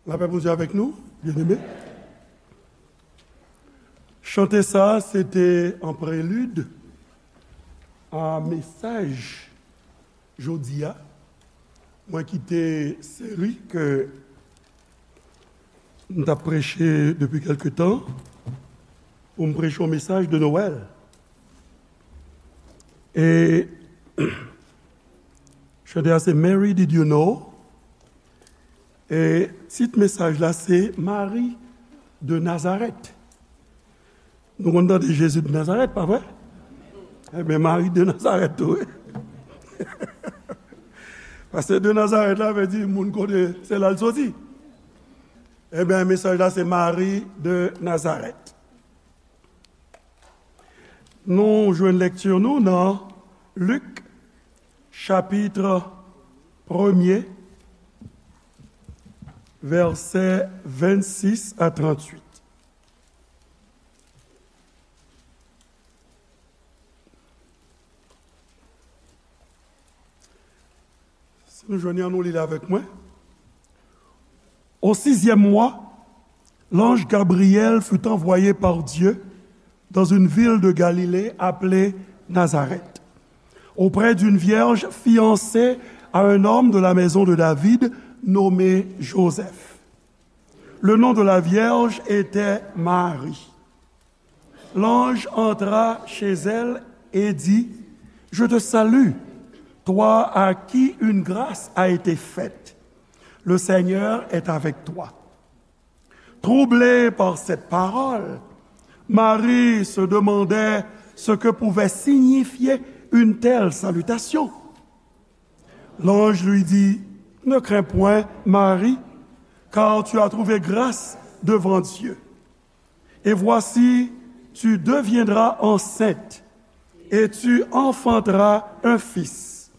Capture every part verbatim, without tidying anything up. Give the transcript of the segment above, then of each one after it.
Lapè Bondye avèk nou, byeneme. Chante sa a, se te an prelid a mesaj jodi a. Mwen kite seri ke m t ap preche depi kèlke tan pou m preche yon mesaj de Nwèl. E chante a se Mary, Did You Know? E tit mesaj la se Mari de Nazarèt. Nou konn tande Jezi de Nazarèt, pa vre? Ebyen, Mari de Nazarèt tou, wi. Paske de Nazarèt la vle di moun kote se la l soti. Ebyen, mesaj la se Mari de Nazarèt. Nou jwenn lekti nou nan Lik, chapit premye, vèsè vennsis a tranntuit. Si nou jwenn li, ann nou li l avèk mwen. Au sixième mois, l'ange Gabriel fut envoyé par Dieu dans une ville de Galilée appelée Nazareth, auprès d'une vierge fiancée à un homme de la maison de David nommé Joseph. Le nom de la vierge était Marie. L'ange entra chez elle et dit, Je te salue, toi à qui une grâce a été faite. Le Seigneur est avec toi. Troublée par cette parole, Marie se demandait ce que pouvait signifier une telle salutation. L'ange lui dit, Ne crains point, Marie, car tu as trouvé grâce devant Dieu. Et voici, tu deviendras enceinte, et tu enfanteras un fils,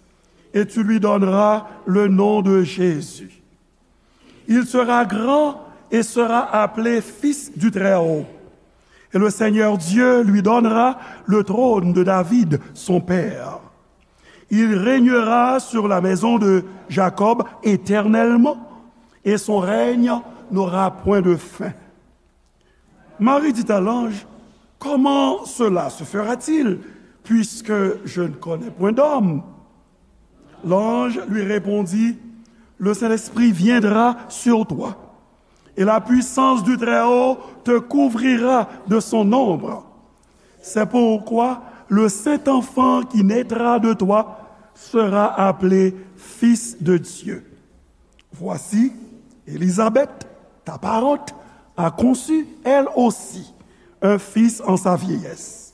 et tu lui donneras le nom de Jésus. Il sera grand et sera appelé Fils du Très-Haut. Et le Seigneur Dieu lui donnera le trône de David, son père. Il régnera sur la maison de Jacob éternellement, et son règne n'aura point de fin. Marie dit à l'ange, Comment cela se fera-t-il, puisque je ne connais point d'homme? L'ange lui répondit, Le Saint-Esprit viendra sur toi, et la puissance du Très-Haut te couvrira de son ombre. C'est pourquoi le saint enfant qui naîtra de toi sera appelé Fils de Dieu. Voici, Élisabeth, ta parente, a conçu, elle aussi, un fils en sa vieillesse.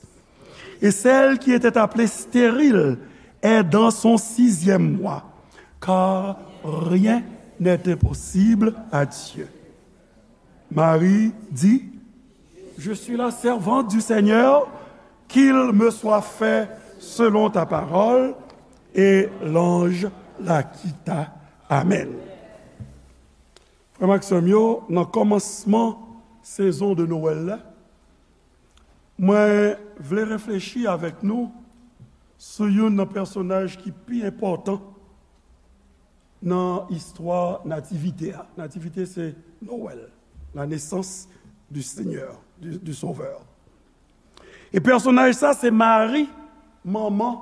Et celle qui était appelée stérile est dans son sixième mois, car rien n'est impossible à Dieu. Marie dit, Je suis la servante du Seigneur, qu'il me soit fait selon ta parole. Et l'ange la quitta. Amen. Frè m ak sè m yo, nan kòmansman sezon de Nwèl la, mwen vle reflechi avèk nou sou youn nan pèsonaj ki pi enpòtan nan istwa Nativite a. Nativite se Nwèl, la naissance du Seigneur, du, du Sauveur. E pèsonaj sa se Mari, manman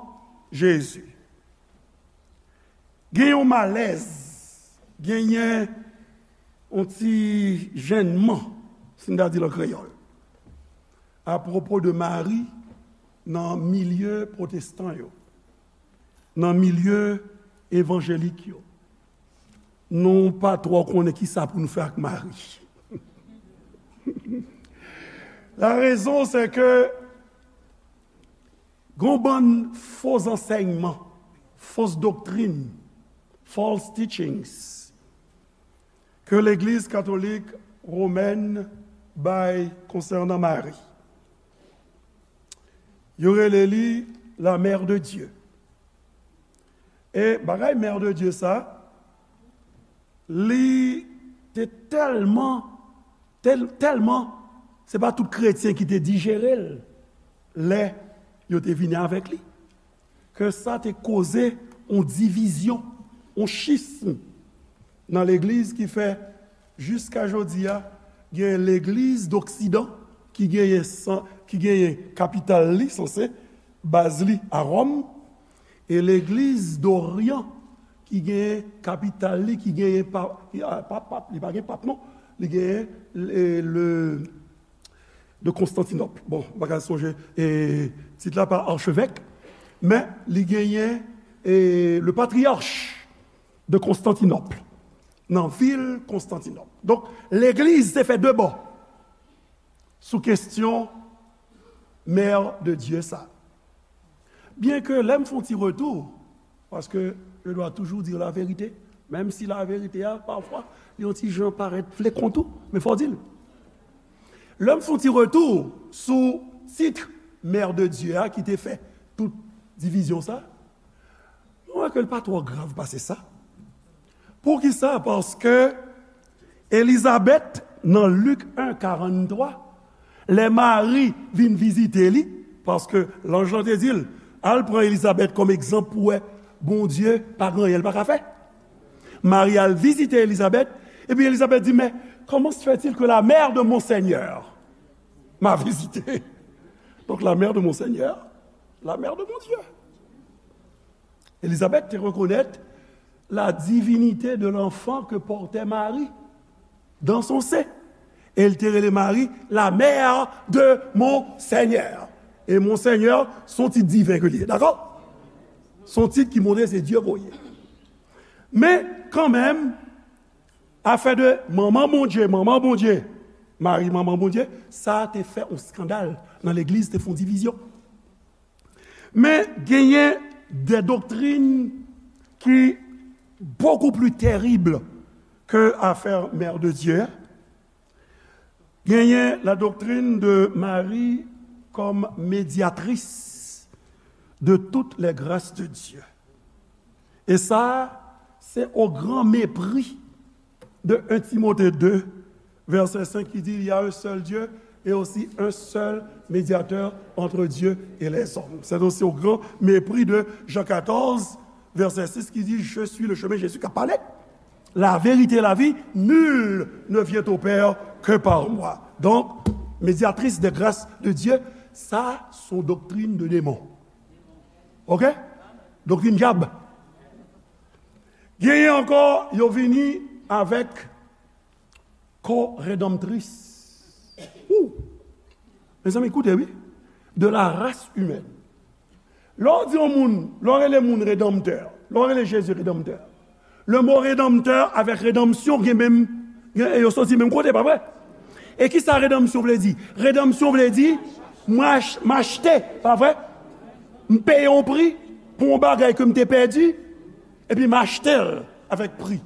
Jezi. Gen yon malèz, genyen yon ti jennman, si n ta di l an kreyòl, apwopo de Mari nan milye pwotestan yo, nan milye evanjelik yo. Nou pa twò konnen kisa pou nou fè ak Mari. La raison, c'est que gon bann fo zansèyman, fo doktrin, false teachings, ke legliz katolik womèn bay konsènan Mari. Yo rele li la Mère de Dieu. E bagay Mère de Dieu sa, li te tèlman, tèl-, tèlman, se pa tout kretyen ki te dijere l lè yo te vini avèk li, ke sa te koze yon divizyon, yon schisme nan legliz ki fè Jiska jodi a, gen legliz d'Oksidan ki genyen san, ki genyen kapital li, sanse, baz li a Wòm, e legliz d'Oryan ki genyen kapital li, ki genyen pa, pa, pa, li pa gen pap non, li genyen le, le, de Konstantinòp. Bon, m pa ka sonje, e, tit la pa archevêque, men li genyen, e, le patriarche de Konstantinòp, nan vil Konstantinòp. Donk, legliz te fè de bò sou kesyon Mère de Dieu sa. Byen ke lè m fè yon ti retou, paske je dois toujours dire la vérité, menm si la verite a, pafwa, li yon ti jan parèt flekon tou, men fò w di l. Lè m fè yon ti retou sou tit Mère de Dieu a ki te fè tout divizyon sa, mwen wè ke l pa twò grav pase sa. Poukisa? Paske Elizabèt, nan Lik en, karannntwa, lè Mari vin vizite li, paske lanj lan te di l, al pran Elizabèt kòm egzanp pou wè Bondye pa gen anyen l pa ka fè. Mari al vizite Elizabèt, epi Elizabèt di, mais comment se fait-il que la mère de mon Seigneur m'a visité? Donc la mère de mon Seigneur, la mère de mon Dieu. Elizabèt te rekonèt la divinité de l'enfant que portait Marie dans son sein. E l te rele Mari la mère de mon Seigneur. E mon Seigneur, se yon tit diven ke li ye, dakò? Se yon tit ki montre se Dye voye. Men, kanmenm, afè de manman Bondye, manman Bondye, Mari, manman Bondye, sa te fè yon eskandal nan legliz, te fè yon divizyon. Men genyen de doktrin ki beaucoup plus terrible que affaire Mère de Dieu. Genyen la doctrine de Marie comme médiatrice de toutes les grâces de Dieu. E sa, se au grand mépris de un Timothée deux, verset cinq, qui dit, il y a un seul Dieu et aussi un seul médiateur entre Dieu et les hommes. C'est aussi au grand mépris de Jean quatorze, verset six, qui dit, je suis le chemin, Jésus qui a parlé, la vérité et la vie, nul ne vient au Père que par moi. Donc, médiatrice de grâce de Dieu, sa, se yon doktrin de démon. OK? Doktrin dyab. Genyen ankò, yo vini avèk co-rédemptrice. Ou! Mezanmi, koute, wi. De la race humaine. Lè w di yon moun, lè w rele moun redanmtè, lè w rele Jezi redanmtè, le mot rédempteur avec rédemption gen menm, gen, yo soti menm kote, pa vre? E ki sa redanmsyon vle di? Redanmsyon vle di, mwen ach-, m achte, pa vre? M peye yon pri pou yon bagay ke m te pèdi, epi m achte l avèk pri.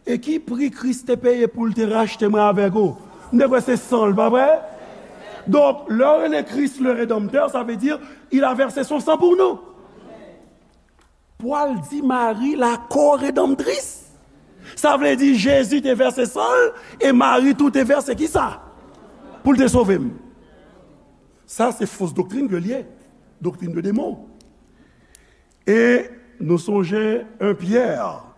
E ki pri Kris te peye pou l te rachte mwen avèk ou? M te kwè se san l, pa vre? Donk, lè w rele Kris le Redanmtè, sa vle di, il a versé son sang pour nous. Pwal di Mari la co-rédemptrice. Sa vle di Jezi te vèse san l e Mari tou te vèse ki sa? Pou l te sove m. Sa se fos doktrin ke l ye. Doktrin de demon. E nou sonje en Pyè,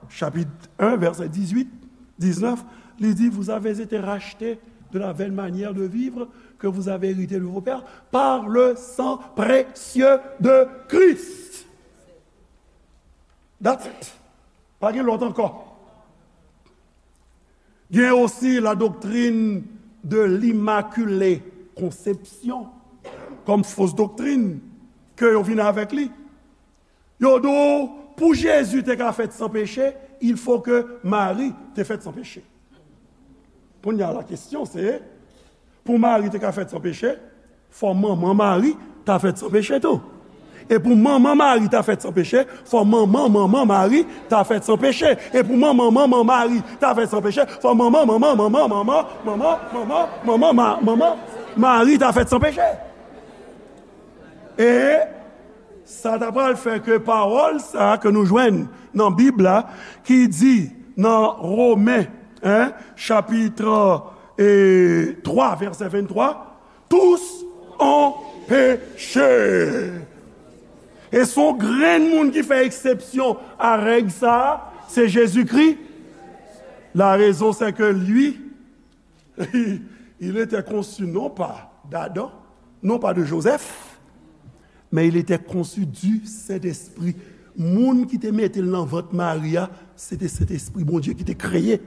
chapit en, vèsè dizuit, diznèf, li di, vous avez été rachetés de la vaine manière de vivre que vous avez héritée de vos pères par le sang précieux de Christ. That's it. Pa gen lòt ankò. Gen osi la doctrine de l'Immaculée Conception kòm fos doktrin ke yo vin avèk li. Yo di w, pou Jezi te ka fèt san peche, il faut que Mari te fèt san peche. Kounye a la kesyon se, pou Mari te ka fèt san peche, fò manman Mari ta fèt san peche tou. E pou manman Mari ta fèt san peche, fò manman manman Mari ta fèt san peche. E pou manman manman Mari ta fèt san peche, fò manman manman manman manman manman manman manman ma-, manman Mari ta fèt san peche. E sa ta pral fè ke pawòl sa a ke nou jwenn nan Bib la, ki di nan Women, en, chapit, e, twa, vèsè venntwa, tous ont péché. E se yon grenn moun ki fè eksepsyon a règ sa a, se Jezikri. La raison, c'est que lui, il était conçu non pas d'Adam, non pas de Joseph, mais il était conçu du Saint-Esprit. Moun ki te mete l nan vant Mari a, se te Sentespri Bondye ki te kreye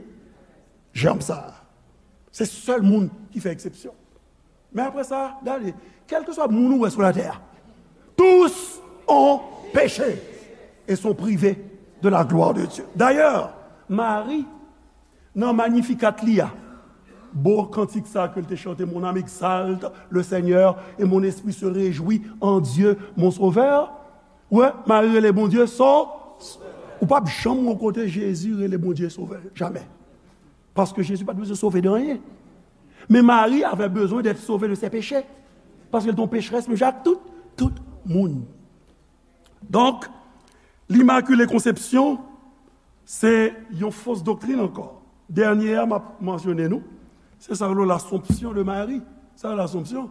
jèm sa a. Se sèl moun ki fè eksepsyon. Men apre sa, gade, kèlkeswa moun ou wè sou latè a, tous ont péché et sont privés de la gloire de Dieu. D'ailleurs, Mari, nan Magnificat li a, bo kantik sa ke l te chante, Mon âme exalte le Seigneur et mon esprit se réjouit en Dieu mon Sauveur. Wè, Mari rele Bondye so, ou p ap janm wè kote Jezi rele Bondye Sovè, jamè. Paske Jezi pa t bezwen sove de anyen. Men Mari avè bezwen d'être sauvé de ses péchés. Paske l te yon pecherès menm jan ak tout, tout moun. Donk, L'Immaculée Conception, se yon fos doktrin ankò. Dènye a m ap mansyone nou, se sa yo rele l'Assomption de Marie. Sa l'Assomption,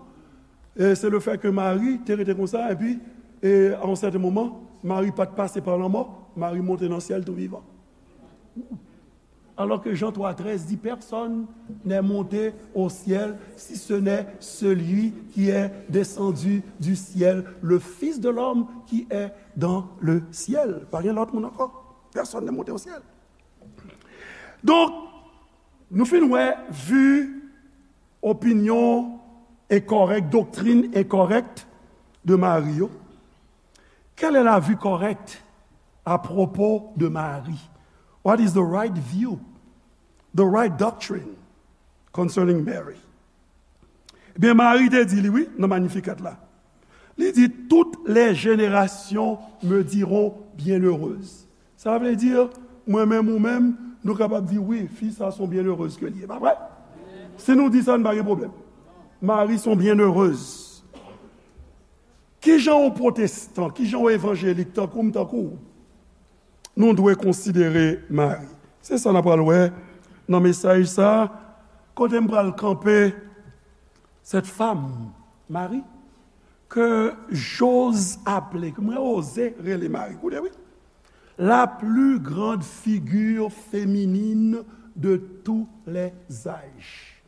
e se le fè ke Mari te rete konsa, epi, e a yon sèten moman, Mari pa t pase pa lanmò, Mari monte nan syèl tou vivan. Alors que Jean trois treize dit, personne n'est monté au ciel si ce n'est celui qui est descendu du ciel, le Fils de l'homme qui est dans le ciel. Pa gen lòt moun ankò. Personne n'est monté au ciel. Donk, nou fin wè vi opinyon enkorèk, doktrin enkorèk de Mari yo. Quelle est la vue correcte à propos de Marie? What is the right view, the right doctrine concerning Mary? Ebyen, Mari te di li, wi, nan Magnificat la. Li di, toutes les générations me diront bienheureuse. Sa vle di, mwen menm, ou menm, nou kapab di, wi, fi sa se yon byennerez ke li ye, pa vre? Si nou di sa, n pa gen pwoblèm. Mari se yon byennerez. Kijan yon pwotestan, kijan yon evanjelik tankou m, tankou w, nou dwe konsidere Mari? Se sa n ap pral wè nan mesaj sa a, kote m pral kanpe, cette femme, Marie, que j'ose appeler, ke mwen oze rele Mari. Koute, wi. La plus grande figure féminine de tous les âges.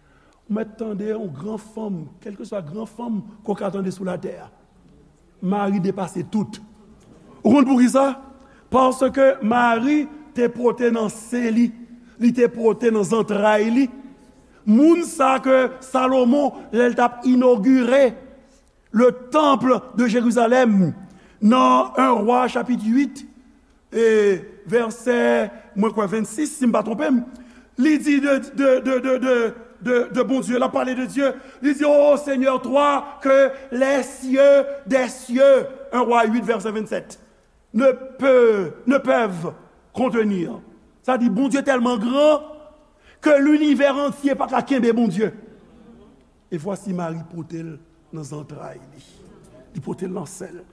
Ou mèt tande yon gran fanm, kèlkeswa gran fanm ke w ka tande sou latè a. Mari depase tout. Ou konn poukisa? Paske Mari te pote nan sen li, li te pote nan zantray li. Moun sa ke Salomon, lè l t ap inogire le temple de Jérusalem, nan un Roi chapit uit, e vèsè, mwen kwè vennsis, si m pa twonpe m, li di de, de, de, de, de, de, de Bondye, l ap pale de Dye, li di, ô Seigneur, toi que les cieux des cieux, un Roi uit, vèsè vennsèt, ne peut, ne peuvent contenir. Sa di, Bondye tèlman gran ke linivè antye pa ka kenbe Bondye. E vwasi Mari pote l nan zantray li. Li pote l nan sen l.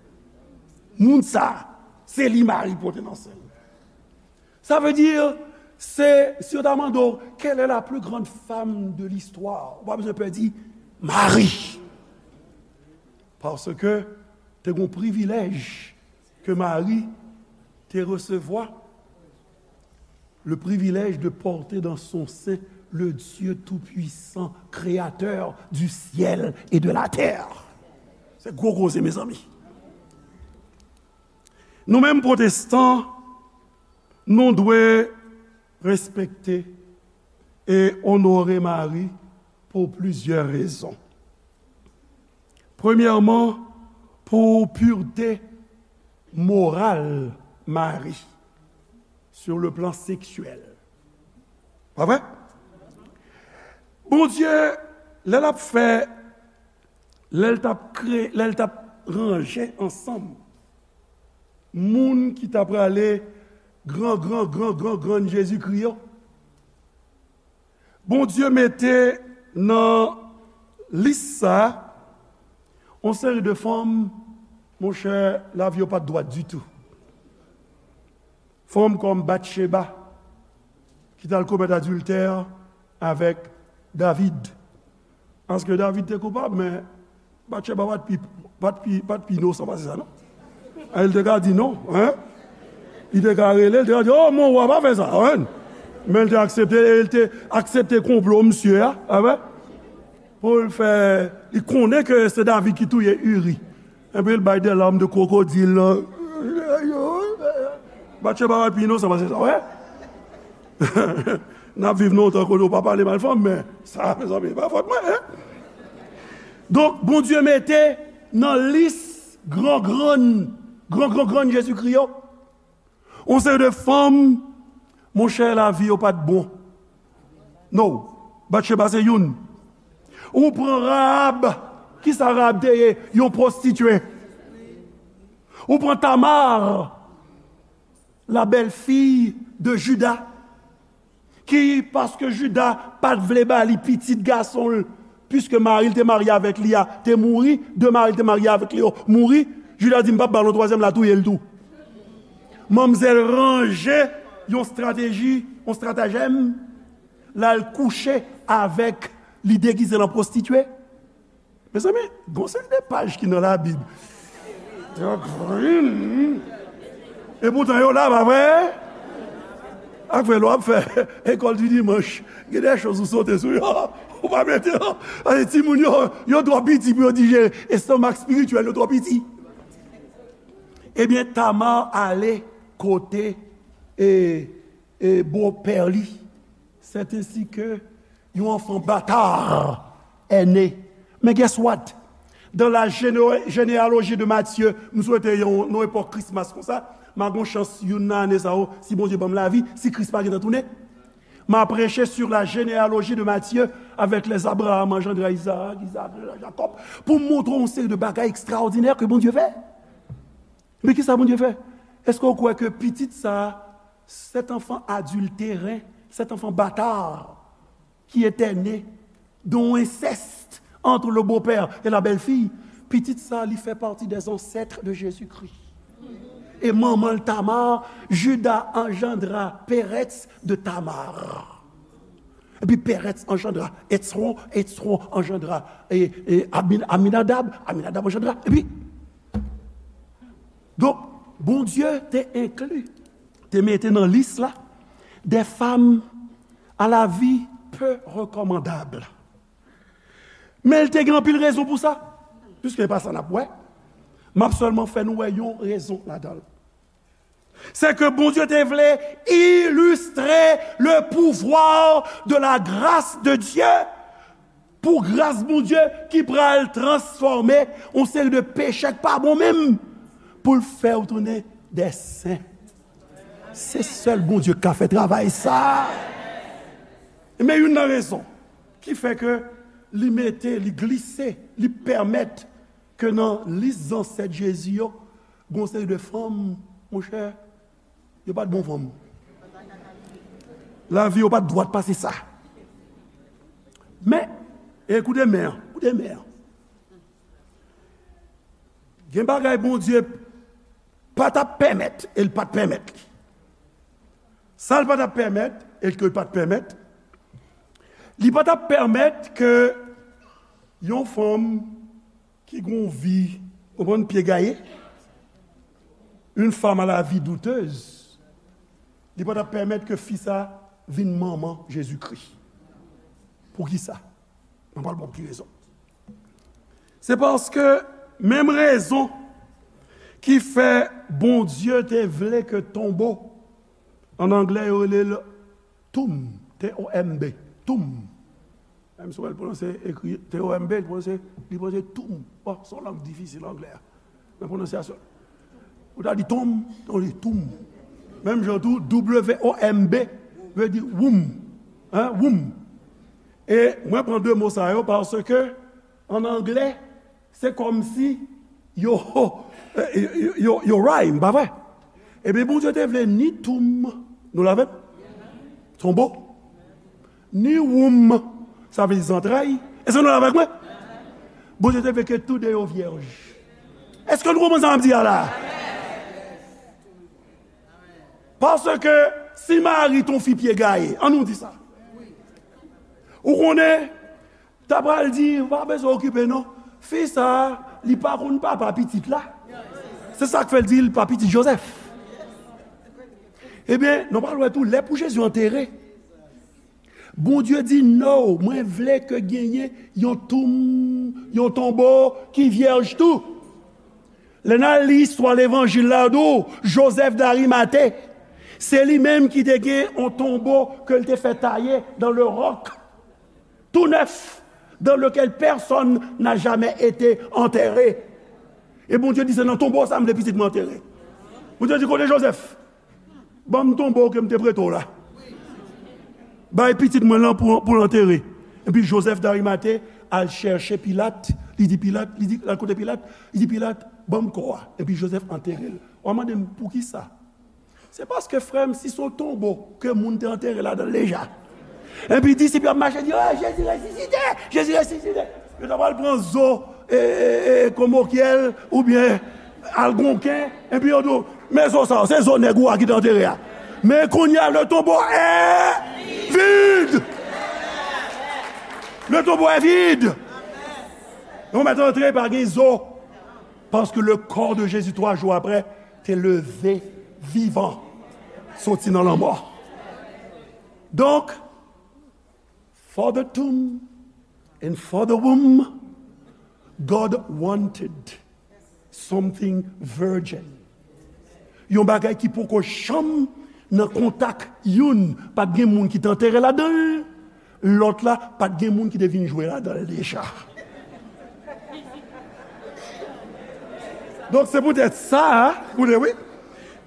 Moun sa, se li Mari pote nan sen l. Sa vle di, se, si yo ta mande w, quelle est la plus grande femme de l'histoire? Ou pa bezwen pè di, Mari. Paske te gen yon privilèj ke Mari te resevwa, le privilège de porter dans son sein le Dieu tout-puissant, créateur du ciel et de la terre. Se gwo koze, mezanmi. Nou menm pwotestan, nou dwe respekte e onore Mari pou plizyè rezon. Premyèman, pou purte moral Mari, sur le plan sexuel. Pa vre? Bondye, lè l ap fè, lè l t ap kre-, lè l t ap ranje ansanm moun ki ta prale gran, gran, gran, gran, grann Jezikri yo, Bondye mete nan lis sa a yon seri de fanm, monchè, lavi yo pa t dwat ditou. Fanm kòm Batcheba, ki t al komèt adiltè avèk David. Paske David te koupab, men Batcheba pa t pi, pa t pi, pa t pi inosan pase sa, non. E li te ka di non, en. Li te ka rele, li te ka di, "O, mon wa, pa fè sa, en." Men l te aksepte, e l te aksepte konplo misye a, a wè? Pou l fè, li konnen ke se David ki touye Uri. Epi l bay de larmes de crocodile, lan. Batcheba pa pi inosan pase sa, wè? N ap viv nan yon tan kote w pa pale mal fanm, men sa, mezanmi, pa fòt mwen, en? Donk, Bondye mete nan lis gran grann, gran gran grann Jezikri yo, yon seri de fanm, monchè, lavi yo pa t bon. No. Batcheba se youn. Ou pran Rahab. Kisa Rahab te ye? Yon pwostitye. Ou pran Tamar, la belle-fille de Juda, ki, paske Juda pa t vle ba li pitit gason l, piske mari l te marye avèk li a te mouri, de mari l te marye avèk li yo mouri, Juda di, "M p ap ba l yon twazyèm, l a touye l tou." Manmzèl ranje yon estrateji, yon estratajèm, l al kouche avèk, li degize l an pwostitye. Mezanmi, gon seri de paj ki nan Labib. Tank vre, hmm. Epoutan yo la, pa vre? Ak vre, lè w ap fè ekòl di dimanch, gen de choz ou sote sou yo. Ou pa mete yo. Paske timoun yo, yo twò piti pou yo dijere. Estomak espirityèl yo twò piti. Ebyen, Tamar ale kote, e, e, bopè li. C'est ainsi que yon enfant bâtard est né. Men guess what? Dans la géné-, généalogie de Matthieu, m swete yon, yon epòk Christmas konsa, m a gon chans youn nan ane sa yo, si Bondye ban m lavi, si Kris pa gentan tounen, m a preche sur la généalogie de Matthieu avec les Abraham engendra Isaac, Isaac engendra Jacob, pou m montre w yon seri de bagay ekstraòdinè ke Bondye fè. Men kisa Bondye fè? Èske w kwè ke pitit sa a, cet enfant adultérin, cet enfant bâtard, qui était né d'un inceste entre le beau-père et la belle-fille, pitit sa a, li fè pati des ancêtres de Jésus-Christ. E manman l Tamar, Juda engendra Pérez de Tamar. Epi Pérez engendra Hetsron, Hetsron engendra, e, e, Amin-, Aminadab, Aminadab engendra, epi Donk, Bondye te enkli, te mete nan lis la, des femmes à la vie peu recommandables. Men l te gen anpil rezon pou sa. Piske e pa sa n ap wè, m ap sèlman fè nou wè yon rezon ladan l. Se ke Bondye te vle illustre le pouvoir de la grâce de Dieu. Pou gras Bondye ki pral transfòme yon seri de peche k pa bon menm, pou l fè w tounen de sen. Se sèl Bondye k ka fè travay sa. Men youn nan rezon ki fè ke li mete, li glise, li pèmèt ke nan lis zansèt Jezi yo, gon seri de fanm, monchè, yo pa t bon fanm. Lavi yo pa t dwat pase sa. Men, e koute men an, koute men an. Gen bagay Bondye pa t ap pèmèt, e l pa t pèmèt li. Sa l pa t ap pèmèt, e ke l pa t pèmèt, li pa t ap pèmèt ke yon fanm ki gon vi, konprann, pye gaye, une femme à la vie douteuse, li pa t ap pèmèt ke fi sa vin manman Jezikri. Poukisa? Mwen pral ba w ki rezon. Se paske menm rezon ki fè Bondye te vle ke tonbo, an anglè yo rele l tomb, T O M B, tomb. Menm si w wè l pwononse, ekri T O M B, li pwononse, li pwononse tomb. Bon, se yon lang difisil, anglè a. Nan pwononsyasyon. Ou ta di tomb, ou di tomb. Menm jan tou, W O M B vle di womb. Hein, womb. E mwen pran de mo sa yo paske, an anglè, se kòmsi yo, yo, yo, yo rhyme, pa vre? Ebyen, Bondye te vle ni tomb, nou la avè m? Tonbo. Ni womb, sa vle di zantray. Èske nou la avèk mwen? Bondye te vle ke tou de yo vyèj. Èske nou konprann sa m ap di a la? Paske si mari t on fi pye gaye, an nou di sa. Ou konnen, ta pral di, ou pa bezwen okipe non. Fi sa, li pa konn papa pitit la. Se sa k fè l di l pa pitit Jozèf. Ebyen, nou pral wè tou, lè pou Jezi antere, Bondye di, "No, mwen vle ke genyen yon toum, yon tonbo ki vyèj tou." Lè n al li istwa levanjil la, yo di w, Joseph d'Arimathée, se li menm ki te gen yon tonbo ke l te fè taye dans le roc, tout neuf, dans lequel personne n'a jamais été enterré. E Bondye di, "Se nan tonbo sa m vle pitit mwen antere." Bondye di, "Kote Joseph? Ban m tonbo ke m te prete w la. Bay pitit mwen lan pou, pou l antere." Epi Joseph d'Arimathée al chèche Pilat, li di Pilat, li di, al kote Pilat, li di Pilat, "Ban m kò a." Epi Joseph antere l. W a mande m, "Poukisa?" Se paske, frè m, si se yon tonbo ke moun te antere ladan l deja, epi disip yo ap mache di, "Oh, Jezi resisite! Jezi resisite!" Yo ta pral pran zo, e, e, e, komokyèl oubyen algonken, epi yo di w, "Men zo sa yo, se zo nèg ou a ki te antere a." Men kounye a, le tombeau est vide. Le tombeau est vide. Yo mèt antre, pa gen zo. Paske le corps de Jésus, twa jou apre, te leve vivan, soti nan lanmò. Donk, for the tomb and for the womb, God wanted something virgin. Yon bagay ki poko janm nan kontak youn, pa t gen moun ki te antere ladan l, lòt la, pa t gen moun ki te vin jwe ladan l deja. Donk, se poutèt sa, koute, wi.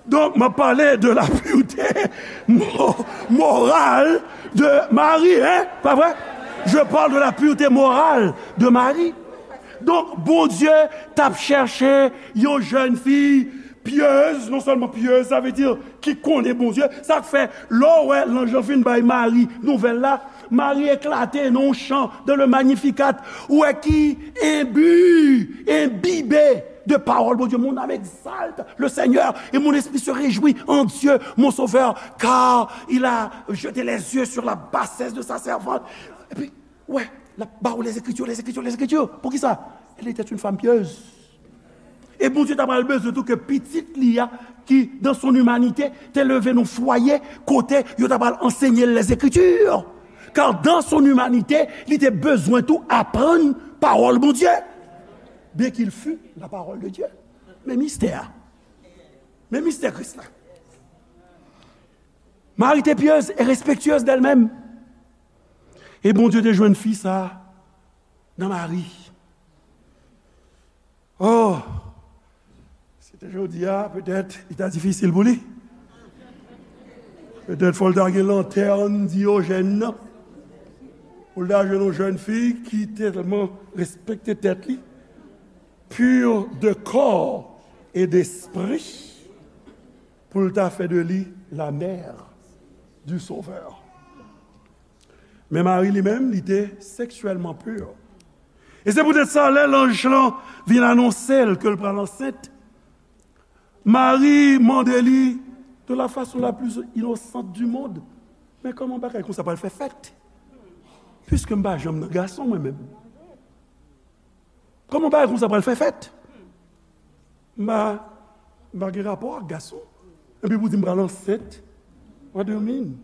Donk, m ap pale de la pureté mo-, morale de Marie, hein, pa vre? Je parle de la pureté morale de Marie. Donk, Bondye t ap chèche yon jèn fi pyez, non sèlman pyez, sa vle di ki konnen Bondye. Sa k fè, lè w wè lanj lan fin bay Mari nouvèl la, Mari eklate nan yon chan de le Magnificat, ou wè ki enbi, enbibe de pawòl Bondye. Mon âme exalte le Seigneur et mon esprit se réjouit en Dieu, mon Sauveur, car il a jeté les yeux sur la bassesse de sa servante. Epi, wè, l ap ba w les Écritures, les Écritures, les Écritures. Poukisa? Elle était une femme pieuse. E Bondye ta pral bezwen tou ke pitit li a, ki, dans son humanité, te leve nan fwaye kote yo ta pral ansenye l les Écritures. Car dans son humanité, li te bezwen tou aprann pawòl Bondye. Bien qu'il fût la parole de Dieu. Men mistè a. Men mistè Kris la. Marie était pieuse et respectueuse d'elle-même. E Bondye te jwenn fi sa a nan Mari. Oh! Si te jodi a, petèt, li ta difisil pou li. Petèt fò l ta gen lantèn Diyojèn nan. Pou l ta jwenn yon jèn fi ki tèlman respekte tèt li, pur de corps et d'esprit, pou l ta fè de li la mère du Sauveur. Men Mari li menm, li te seksyèlman pur. E se poutèt sa, lè lanj lan vin anonse l ke l pral ansent, Mari mande li de la façon la plus innocente du monde, "Men kòman bagay konsa pral fè fèt? Piske m pa janm nan gason mwen menm. Kòman bagay konsa pral fè fèt? M pa, m pa gen rapò ak gason. Epi pou di m pral ansent? What do you mean?"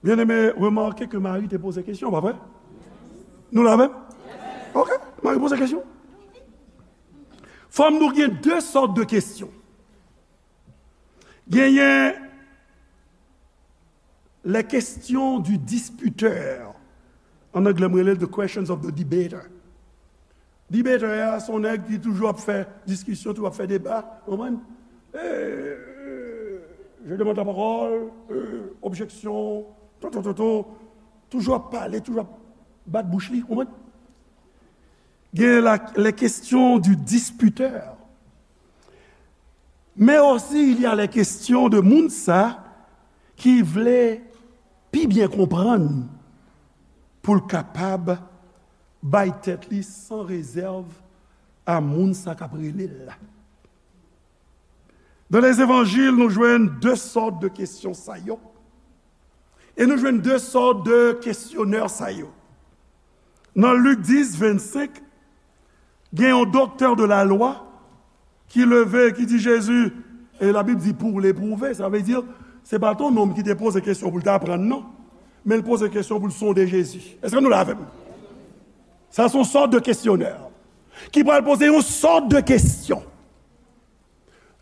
Byeneme, remake ke Mari te poze kesyon, pa vre? Nou la menm? Ok, Mari poze kesyon. Fò m di w gen de sòt de kesyon. Genyen les questions du disputeur. An anglè, m rele the questions of the debater. Debater a, se yon nèg ki toujou ap fè diskisyon, toujou ap fè deba, w konprann? Eh, je demande la parole, eh, objection, to, to, to, to. Toujou ap pale, toujou ap bat bouch li, w konprann? Gen la, les questions du disputeur. Mais aussi, il y a les questions de moun sa ki vle pi byen konprann pou l kapab bay tèt li san rezèv a moun sa k ap rele l la. Dans les évangiles, nou jwenn de sòt de kesyon sa yo. E nou jwenn de sòt de kesyonè sa yo. Nan Lik dis, vennsenk, gen yon doktè de la lwa ki leve, ki di Jezi, e Labib di pour l'éprouver, sa vle di, Se pa t yon nonm ki te poze kesyon pou l ta aprann, non. Men l poze kesyon pou l sonde Jezi. Èske nou la avè m? Sa se yon sòt de kesyonè ki pral poze yon sòt de kesyon.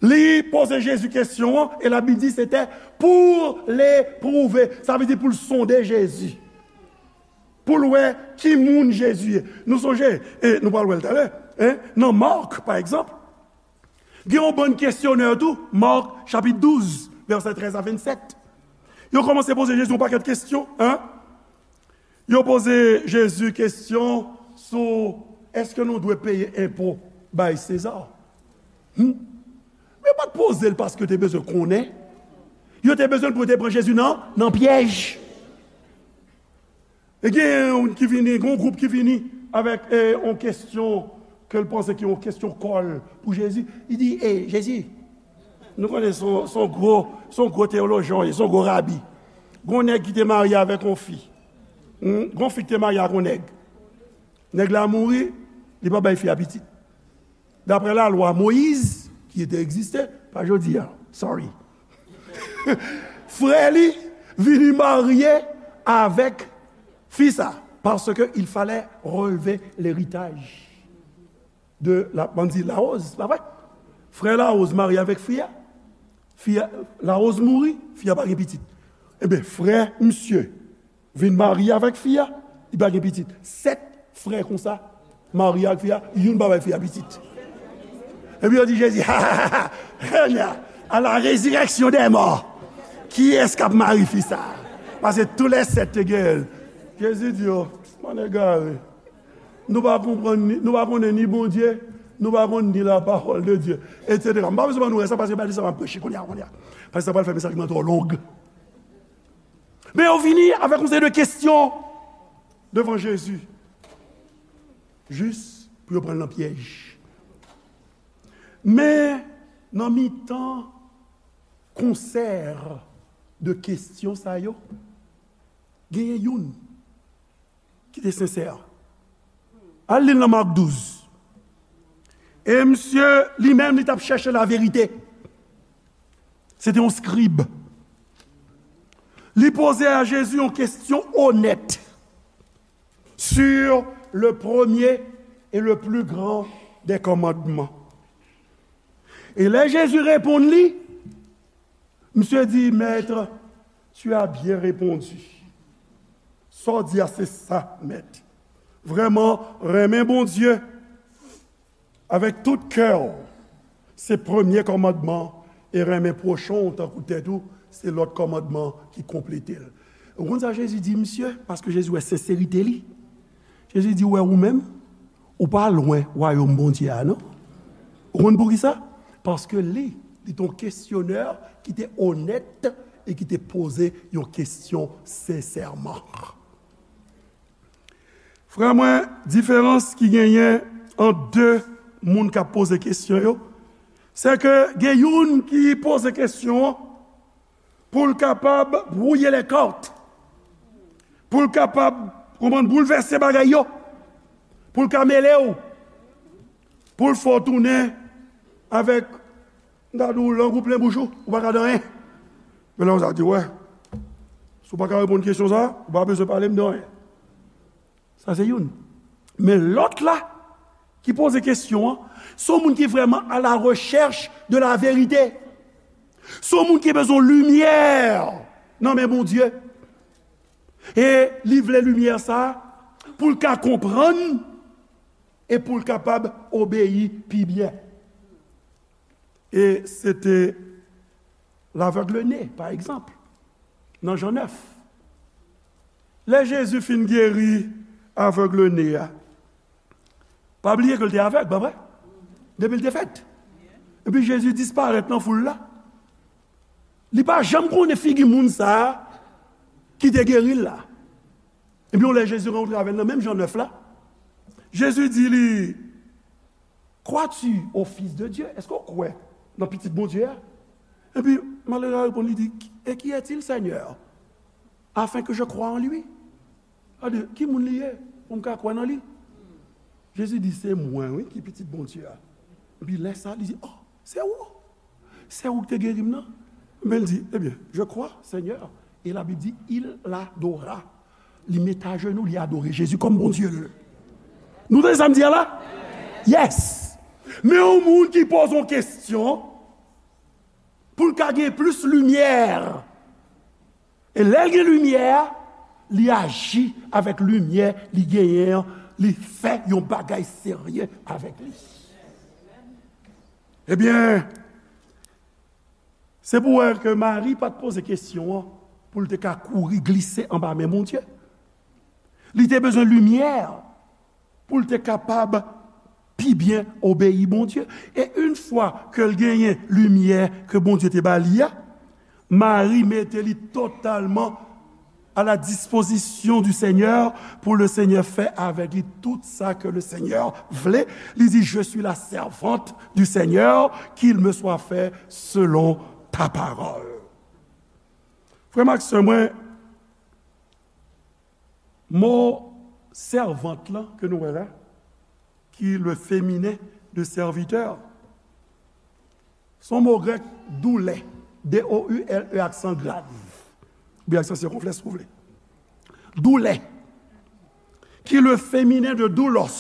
Li poze Jezi kesyon an, e Labib di se te pou l epwouve. Sa vle di pou l sonde Jezi. Pou l wè ki moun Jezi ye. Nou sonje, e nou pral wè l talè, en, nan Mak, pa egzanp, gen yon bann kesyonè tou, Mak chapit douz, vèsè trèz a vennsèt. Yo kòmanse poze Jezi yon pakèt kesyon, en. Yo poze Jezi kesyon sou èske nou dwe peye enpo bay Seza. Hmm? Men yo pa t poze l paske yo te bezwen konnen. Yo te bezwen l pou yo te pran Jezi nan, nan pyèj. E gen youn ki vini, gen yon gwoup ki vini avèk, e, yon kesyon ke l panse ki yon kesyon kòl pou Jezi. Li di, e, Jezi, nou konnen se yon, se yon gwo, se yon gwo teyolojyen, se yon gwo rabi. Gen yon nèg ki te marye avèk yon fi. Hmm? Gen yon fi ki te marye ak yon nèg. Nèg la mouri, li pa bay fi a pitit. Daprè lalwa Moyiz, ki te egziste, pa jodi a, sorry. Frè li vini marye avèk fi sa, paske il fallait relever l'héritage de la, bann di Lawoz, pa vre? Frè Lawoz marye avèk fi a, fi a, Lawoz mouri, fi a pa gen pitit. Ebyen, frè misye vin marye avèk fi a, li pa gen pitit. Sèt frè konsa marye ak fi a, youn pa bay fi a pitit. Epi yo di Jezi, ha, ha, ha, ha, à la résurrection des morts, kiyès k ap mari fi sa? Paske tou lè sèt te genyen l. Jezi di yo, bann egare. Nou pa konprann ni, nou pa konnen ni Bondye, nou pa konn ni la parole de Dieu, et cetera. M pa bezwen ban nou wè sa, paske pa de sa m ap preche kounye a, kounye a. Paske sa pral fè mesaj mwen twò long. Men yo vini avèk yon seri de kesyon devan Jezi, jis pou yo pran l nan pyèj. Men nan mitan konsè de kesyon sa yo, genyen youn ki te sensè. Al li l nan Mak douz. E misye, li menm, li t ap chèche laverite. Se te yon skrib. Li poze a Jezi yon kesyon onèt sur le premier et le plus grand des commandements. E lè Jezi reponn li, misye di, Maître, tu as bien répondu. Sa w di a, se sa, Mèt. Vrèman, renmen Bondye avèk tout kè w, se premye kòmandman, e renmen pwochen w tankou tèt ou, se lòt kòmandman ki konplete l. Ou konn sa Jezi di misye? Paske Jezi wè senserite li. Jezi di, ou wè ou menm, ou pa lwen wayòm Bondye a, non. Ou konn poukisa? Paske li, li te yon kesyonè ki te onèt e ki te poze yon kesyon sensèman. Frè mwen, diferans ki genyen ant de moun k ap poze kesyon yo, se ke gen youn ki poze kesyon an pou l kapab brouiller les cartes, pou l kapab, konprann, boulvèse bagay yo, pou l ka mele w, pou l fè w tounen avèk, m ta di w, lang ou plen bouch ou, ou pa ka di anyen. Men lè konsa di, wè, si w pa ka reponn kesyon sa, ou pa bezwen pale m de anyen. Sa se youn. Men lòt la, ki poze kesyon an, se yon moun ki vrèman à la recherche de la vérité. Se yon moun ki bezwen limyè nan men Bondye. E li vle limyè sa a pou l ka konprann e pou l kapab obeyi pi byen. E se te lavèg ne, pa egzanp, nan Jan nèf. Lè Jezi fin geri avèg ne a, pa bliye ke l te avèg, pa vre? Depi l te fèt. Epi Jezi disparèt nan foul la. Li pa janm konnen figi moun sa a ki te geri l la. Epi yon lè Jezi rankontre avè l nan menm Jan nèf la, Jezi di li, Crois-tu au Fils de Dieu? Èske w kwè nan Pitit Bondye a? Epi malere a reponn, li di, Et qui est-il, Seigneur, afin que je croie en lui? Gade, ki moun li ye pou m ka kwè nan li? Jezi di, se mwen, wi, ki Pitit Bondye a. Epi lè sa, li di, oh, se ou? Se ou ki te geri m nan? Men l di, ebyen, je crois, Seigneur. E Labib di, il l'adora. Li met ajenou, li adore Jezi kòm Bondye l. Nou tande sa m di a la? Yes! Men yon moun ki poze yon kesyon pou l ka gen plis limyè. E lè l gen limyè a, li aji avèk limyè li genyen an, li fè yon bagay serye avèk li. Ebyen, se pou wè ke Mari pa t poze kesyon an pou l te ka kouri glise anba men Bondye. Li te bezwen limyè pou l te kapab pi byen obeyi Bondye. E yon fwa ke l genyen limyè ke Bondye te ba li a, Mari mete li totalman à la disposition du Seigneur pour le Seigneur faire avec lui tout ça que le Seigneur voulait. Li di, je suis la servante du Seigneur, qu'il me soit fait selon ta parole. Frè m ak sè mwen, mo sèvant lan ke nou wè la, ki le féminin de serviteur, se yon mo grèk, doulè, D O U L E, aksan grav, oubyen aksan sikonflèks, si w vle. Doulè, ki le féminin de doulos.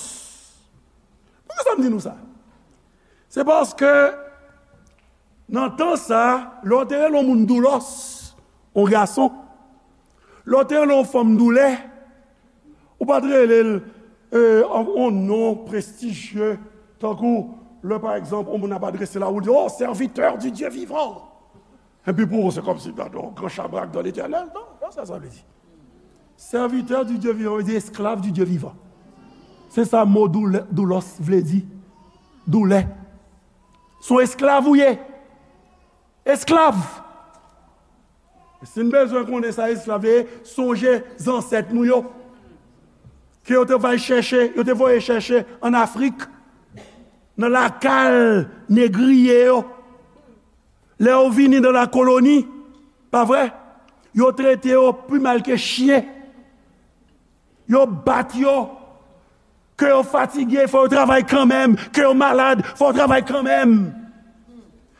Poukisa m di nou sa? Se paske nan tan sa, lè w te rele yon moun doulos, yon gason, lè w te rele yon fanm doulè, ou pa t rele l, e, yon non prestijye, tankou lè, pa egzanp, yon moun ap adrese la, ou di, oh, serviteur du Dieu vivant. Epi pou ou, se kòmsi, gadon, gran chabrak dan Letènèl. Non, pa sa sa vle di. Serviteur du Dieu vivant vle di esklav du Dieu vivant. Se sa mo doulè, doulos vle di. Doulè. Se yon esklav ou ye. Esklav. E si n bezwen konnen sa esklav ye, sonje zansèt nou yo. Ke yo te voye chèche, yo te voye chèche ann Afrik, nan lakay negriye yo. Lè yo vini nan lakoloni, pa vre? Yo trete yo pi mal ke chyen. Yo bat yo. Ke yo fatige, fò yo travay kanmenm. Ke yo malad, fò yo travay kanmenm.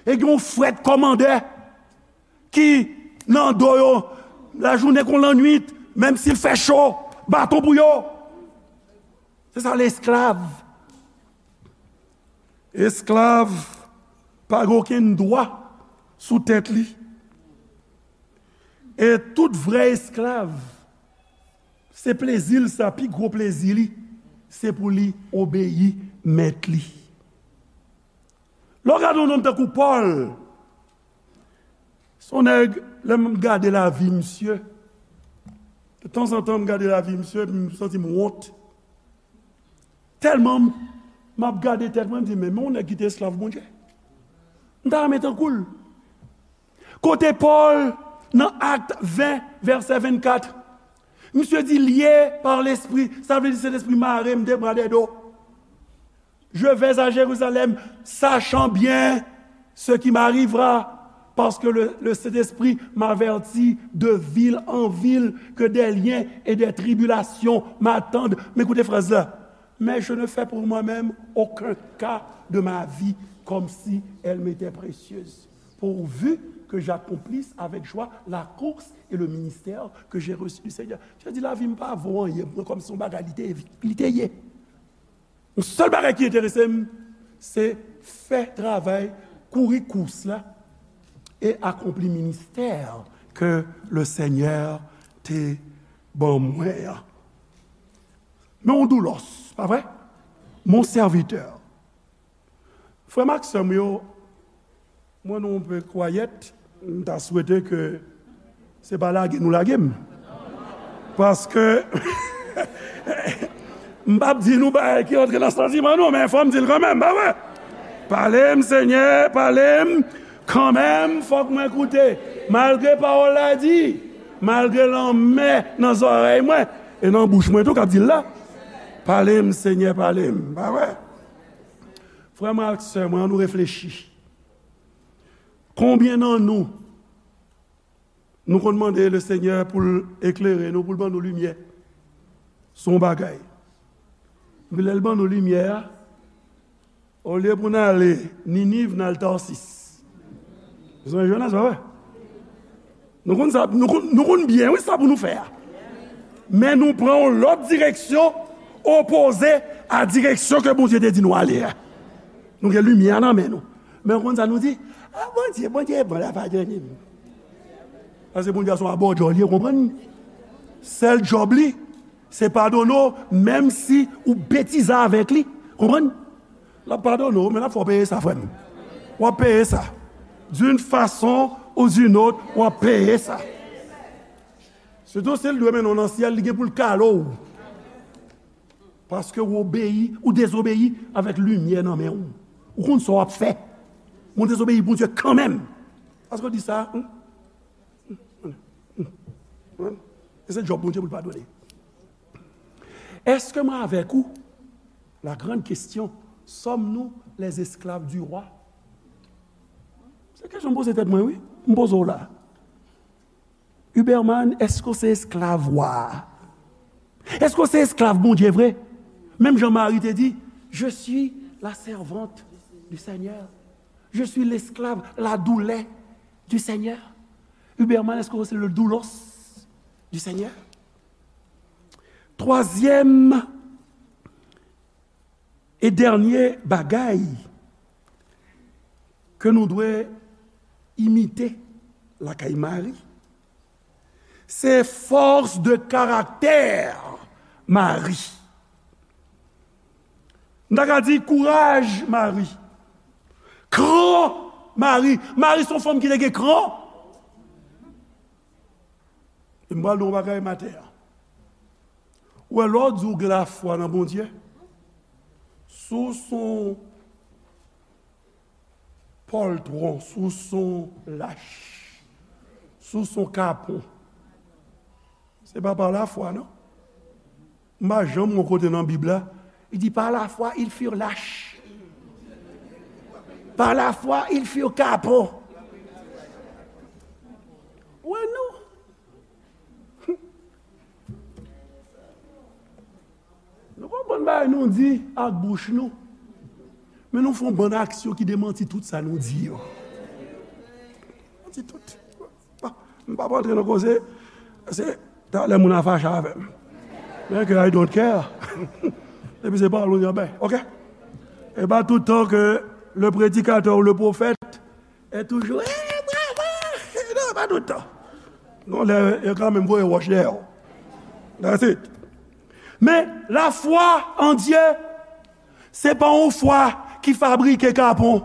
E gen yon frèt kòmandè ki nan do yo, lajounen kon lannwit, menm si l fè cho, baton pou yo. Se sa, lesklav. Esklav pa gen okenn dwa sou tèt li. E tout vrè esklav, se plezi l sa, pi gwo plezi li, se pou li obeyi mèt li. Lè w gade yon nonm tankou Pòl, se yon nèg, lè m gade lavi misye, de tanzantan m gade lavi misye, epi m santi m wont. Tèlman m, m ap gade tèt mwen, m di, men, men yon nèg ki te esklav Bondye. M ta renmen tankou l. Kote Pòl, nan Akt ven, vèsè vennkat, misye di, lié par l'Esprit, sa vle di Sentespri mare m de bra de do. Je vais à Jérusalem, sachant bien ce qui m'arrivera, parce que le, le Saint-Esprit m'avertit de ville en ville que des liens et des tribulations m'attendent. Men koute fraz la. Mais je ne fais pour moi-même aucun cas de ma vie comme si elle m'était précieuse, pourvu que j'accomplisse avec joie la course et le ministère que j'ai reçu du Seigneur. Sa vle di lavi m pa vo anyen pou mwen, kòmsi yon bagay li te, li te ye. Yon sèl bagay ki enterese m, se fè travay, kouri kous la, e akonpli ministè ke le Senyè te ban mwen an. Men yon doulos, pa vre? Mon serviteur. Frè m ak sè m yo, mwen nou yon pe kwayèt, m ta swete ke se pa lage nou lage m. Paske m p ap di nou bagay ki antre nan santiman nou, men fò m di l kanmenm, pa vre? Pale m, Senyè, pale m kanmenm, fòk mwen koute. Malgre pawòl la di, malgre lanmè nan zòrèy mwen, e nan bouch mwen tou k ap di l la. Pale m, Senyè, pale m, pa vre? Frè mwen ak sè mwen, ann nou reflechi. Konbyen nan nou, nou konn mande Lesenyè pou l eklere nou, pou l ban nou limyè? Se yon bagay. Epi lè l ban nou limyè a, olye pou n ale Niniv, n al Tasis. Ou sonje Jonas, pa vre? Nou konn sa, nou konn, nou konn byen, wi, sa pou nou fè a. Men nou pran yon lòt direksyon, opoze a direksyon ke Bondye te di nou ale a. Nou gen limyè nan men nou. Men w konn sa nou di? A, Bondye, Bondye bon, l ap padone m. Paske Bondye a se yon abòdjò li ye, konprann? Sèl djòb li, se padone w, menm si ou betize avèk li. Konprann? L ap padone w, men l ap fè w peye sa, frè m. W ap peye sa. D'une façon ou d'une autre, w ap peye sa. Sitou si l dwe mennen w nan syèl, li gen pou l kale w. Paske w obeyi, ou dezobeyi avèk limyè nan men w. Ou konn sa w ap fè. Men w dezobeyi Bondye kanmenm. Paske w di sa, hmm? E se djòb Bondye pou l padone. Èske mwen avèk ou? La grande question, sommes-nous les esclaves du roi? Se kesyon m poze tèt mwen, wi. M poze w la. Huberman, èske w se esklav wa a? Èske w se esklav Bondye vre? Menm jan Mari te di, je suis la servante du Seigneur. Je suis l'esclave, la douleur du Seigneur. Huberman, èske w se le doulos du Seigneur? Twazyèm e dènye bagay ke nou dwe imite lakay Mari, se fòs de karaktè Mari. M ta ka di kouraj Mari. Kran Mari. Mari se yon fanm ki te gen kran. E m pral di w yon bagay maten an. Ou wè, lè w di w gen lafwa nan Bondye, si w se yon pòltwon, si w se yon lach, si w se yon kapon, se pa pa lafwa, non. M pa janm wè yon kote nan Bib la, li di, par la foi, ils furent lâches. Par la foi, ils furent kapon. Wè, non. Nou konprann bagay nou di ak bouch nou. Men nou fè yon bann aksyon ki demanti tout sa nou di yo. Demanti tout. Bon, m p ap antre nan koze, se talè moun a fache avè m. Men ke I don't care. Depi se pawòl ou di, anben, ok. E pa tout tan ke le prédicateur ou le prophète est toujours, eh, bravo. Non, pa tout tan. Non, lè, yo kanmenm voye wòch dèyè w. That's it. Men, lafwa an Dye, se pa yon fwa ki fabrike kapon.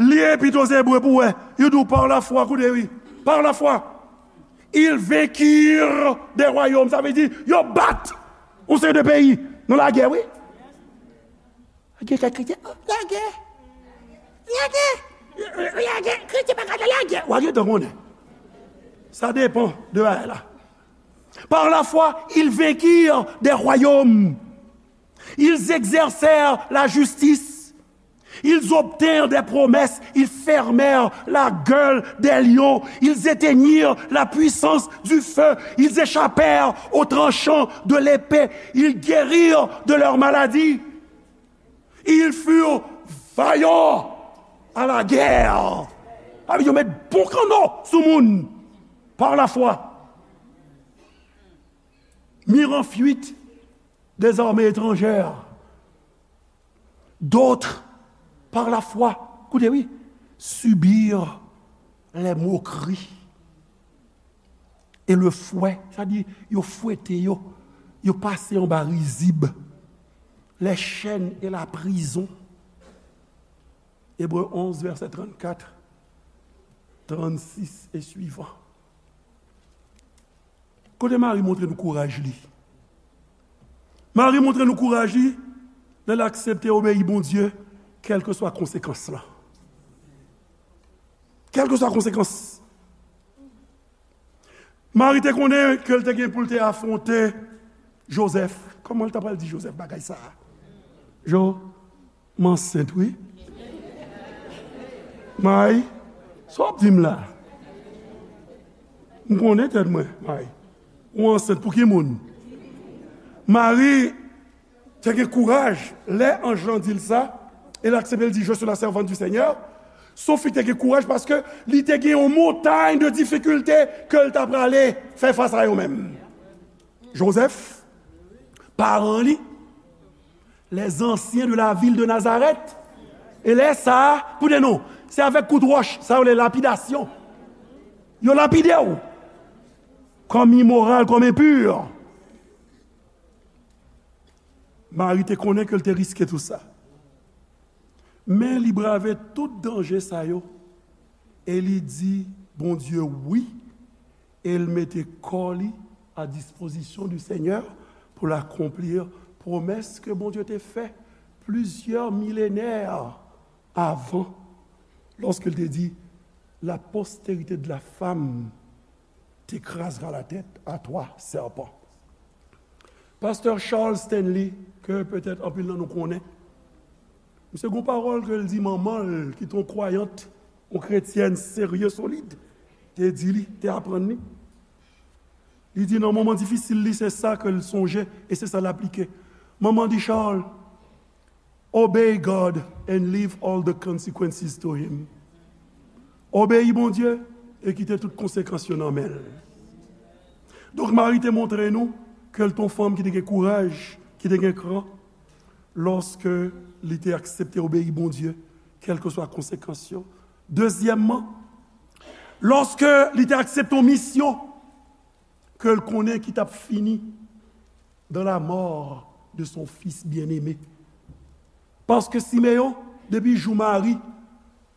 Li epi to se bwe pou wè. Yo di w par la foi, koute wi. Par la foi. Ils vainquirent des royaumes. Sa vle di, yo bat yon seri de peyi nan lagè, wi. Gen kèk kretyen, oh, lagè. Lagè. Lagè. Kretyen pa ka nan lagè. W a gentan konnen. Sa depan de bagay la. Par la foi, ils vainquirent des royaumes. Ils exercèrent la justice. Ils obtinrent des promesses. Ils fermèrent la gueule des lions. Ils éteignirent la puissance du feu. Ils échappèrent au tranchant de l'épée. Ils guérirent de leurs maladies. Ils furent vaillants à la guerre. Sa vle di yo met bon kanno sou moun par la foi. Mirent en fuite des armées étrangères. D'autres, par la foi, koute wi, subirent les moqueries et le fouet, sa di yo fwete yo, yo pase anba rizib, les chaînes et la prison. Ebre onz, vèsè trannkat, trannsis e swivan. Kote Mari montre nou kouraj li? Mari montre nou kouraj li lè l aksepte obeyi Bondye, kèlkeswa konsekans lan. Kèlkeswa konsekans. Mari te konnen ke l te gen pou l te afwonte Jozèf. Kòman l ta pral di Jozèf bagay sa a? Jo, m ansent, wi. May, sa w ap di m la? M konnen tèt mwen, May. Ou ansent pou ki moun? Mari te gen kouraj, lè anj lan di l sa, e l aksepte, l di, je suis la servante du Seigneur, Se yon fi ki te gen kouraj paske li te gen yon montay de difikilte ke l ta prale fè fas a yo menm. Jozèf, paran li, les anciens de la ville de Nazareth. E lè sa a, koute non, se avèk kout wòch, sa yo rele lapidasyon. Yo lapide w kòm imoral, kòm enpi. Mari te konnen ke l te riske tou sa. Men li brave tout danje sa yo e li di Bondye wi e l mete kò li a dispozisyon du Seigneur pou l akonpli pwomès ke Bondye te fè plizyè milenè avan, lòske l te di, la postérité de la femme t'écrasera la tête à toi, serpent. Pastè Charles Stanley, ke petèt anpil nan nou konnen, misye gon pawòl ke l di manman l, ki te yon kwayant, yon kretyèn serye, solid, te di li, te aprann li. Li di nan moman difisil li, se sa ke l sonje e se sa l aplike. Manman di Charles, Obey God and leave all the consequences to him. Obeyi Bondye e kite tout konsekans yo nan men l. Donk, Mari te montre nou ke l te yon fanm ki te gen kouraj, ki te gen kran, lòske li te aksepte obeyi Bondye, kèlkeswa konsekans yo. Dezyèmman, lòske li te aksepte yon misyon ke l konnen ki t ap fini dans la mort de son fils bien-aimé. Paske Simeyon, depi jou Mari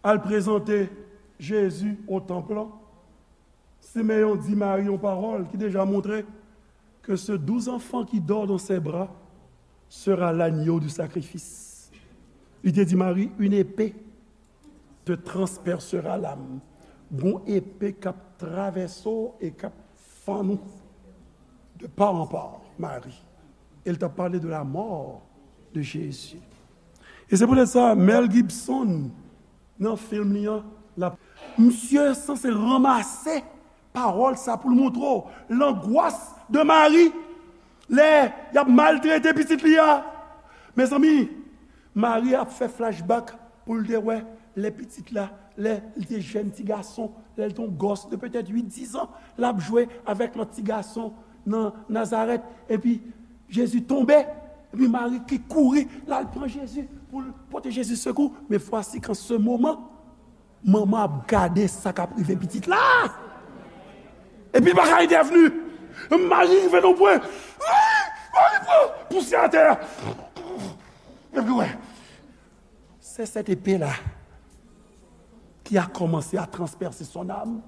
al prezante Jezi o tanp lan, Simeyon di Mari yon pawòl ki deja montre que ce doux enfant qui dort dans ses bras sera l'agneau du sacrifice. Li te di Mari, une épée te transpercera l'âme. Gon epe k ap travèse w e k ap fann ou de part en part, Mari. E l t ap pale de la mort de Jésus. E se poutèt sa, Mel Gibson, nan fim li an, l ap, misye sanse ranmase pawòl sa pou l montre w langwas de Mari lè y ap maltrete pitit li a. Mezanmi, Mari ap fè flashback pou l te wè lè pitit la, lè li te jèn ti gason, lè l te yon gòs de petèt uit, diz an, l ap jwe avèk lòt ti gason nan Nazarèt. Epi, Jezi tonbe, epi Mari ki kouri, l al pran Jezi pou l pote Jezi sekou. Men fwasi, kan se moman, manman ap gade sa k ap rive pitit la. Epi l pa ka entèvni. Mari rive nan pwen. Mari pran pousyè atè a. Epi wè, c'est cette épée-là qui a commencé à transpercer son âme.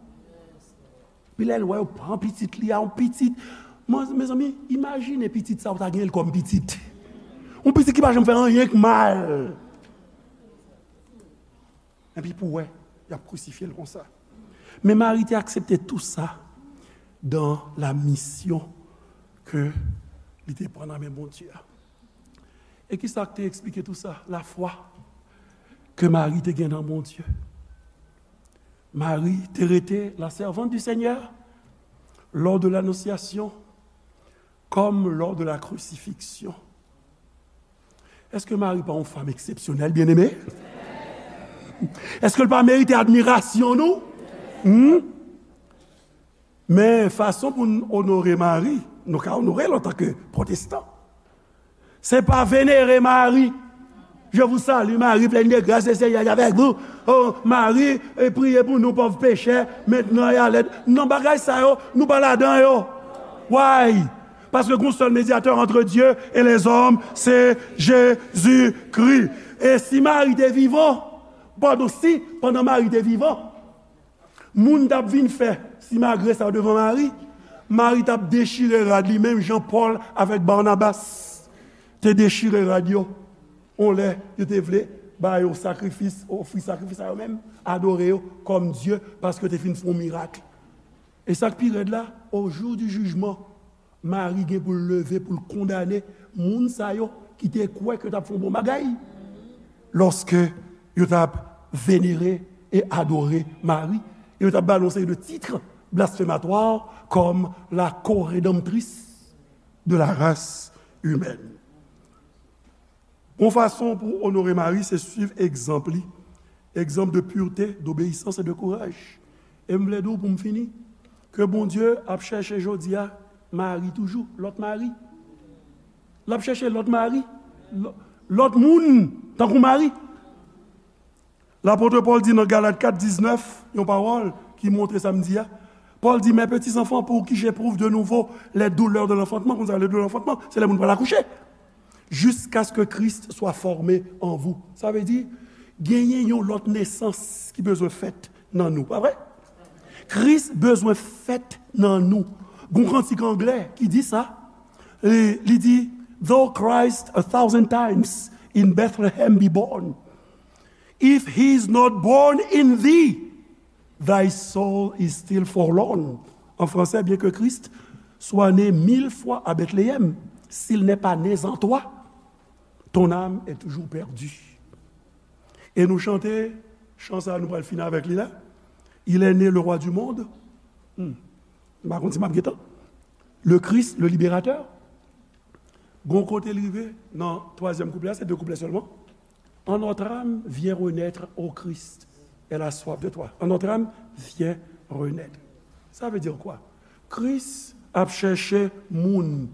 Pi lè l wè yo pran pitit li a, yon pitit. Mwen, mezanmi, imajine pitit sa ou ta genyen l kòm pitit. Yon pitit ki pa janm fè anyen k mal. Epi pou wè, y ap krisifye l konsa. Men Mari te aksepte tou sa dans la mission ke li te pran nan men Bondye a. E ki sa k te eksplike tou sa? Lafwa ke Mari te gen nan Bondye. Mari te rete la servante du Seigneur lors de l'annonciation comme lors de la crucifixion. Èske Mari pa yon fanm eksepsyonèl, byeneme? Èske l pa merite admirasyon nou? Hmm? Men fason pou n onore Mari, nou ka onore l antanke pwotestan. Se pa venere Mari. Je vous salue, Marie, pleine de grâce, le Seigneur est avec vous. Oh, Marie, eh, priez pour nous pauvres pécheurs, maintenant et à l'heure. Non, bagay sa yo, nou pa ladan yo. Why? Paske gon sèl medyatè ant Dye e lèzòm, se Jezikri. E si Mari te vivan, padon, si, pandan Mari te vivan, moun t ap vin fè simagre sa yo devan Mari, Mari t ap dechire rad li, menm jan Pòl avèk Banabas te dechire rad yo. On lè yo te vle ba yo sakrifis, ofri sakrifis a yo menm, adore yo kòm dye, paske yo te fin fè yon mirak. E sa k pi rèd la, au jour du jugement, Mari gen pou l leve, pou l kondane moun sa yo ki te kwè ke yo t ap fè yon bon bagay, lòske yo t ap venere e adore Mari, e yo t ap ba l yon seri de tit blasfematwa kòm la co-rédemptrice de la race humaine. Yon fason pou w onore Mari, se suiv egzanp li Egzanp de pureté, d'obéissance et de courage. E m vle di w pou m fini, ke Bondye ap chèche jodi a mari toujou, lòt mari. L ap chèche lòt mari, lò- lòt moun tankou mari. Lapot Pòl di nan Galat kat diznèf, yon pawòl ki montre sa m di a. Pòl di, Mes petits enfants, pour qui j'éprouve de nouveau les douleurs de l'enfantement. Konn sa, les douleurs de l'enfantement, se lè moun pral akouche. Jusqu'à ce que Christ soit formé en vous. Sa vle di, genyen yon lòt nesans ki bezwen fèt nan nou, pa vre? Kris bezwen fèt nan nou. Gon kantik anglè ki di sa. Li, li di, Though Christ a thousand times in Bethlehem be born, if he is not born in thee, thy soul is still forlorn. En français, bien que Christ soit né mille fois à Bethléem, s'il n'est pas né en toi, ton âme est toujours perdue. E nou chante chan sa, nou pral fini avèk li la. Il est né le roi du monde. Hmm. M pa konn si m ap gentan. Le Christ, le libérateur. Gon kote l rive nan twazyèm kouplè a, se de kouplè sèlman. En notre âme, viens renaître, ô Christ, elle a soif de toi. En notre âme, viens renaître. Ça veut dire quoi? Kris ap chèche moun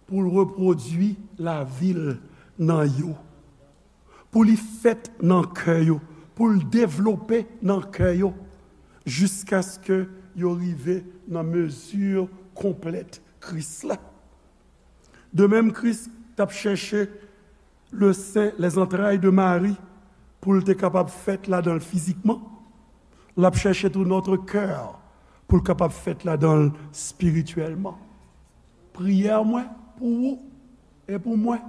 pou l repwodui lavi l nan yo, pou li fèt nan kè yo, pou l devlope nan kè yo, jiskaske yo rive nan mezi konplèt Kris la. De menm, Kris t ap chèche le sein, les entrailles de Marie, pou l te kapab fèt ladan l fizikman. L ap chèche tou notre cœur pou l kapab fèt ladan l espirityèlman. Priyè mwen pou ou e pou mwen,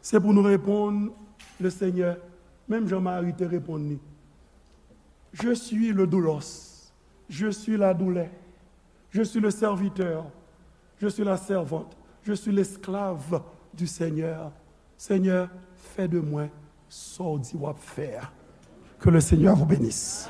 se pou nou reponn le Senyè, menm jan Mari te reponn li. Je suis le doulos, je suis la douleur, je suis le serviteur, je suis la servante, je suis l'esclave du Seigneur. Seigneur, fais de moi ce que tu veux faire. Que le Seigneur vous bénisse.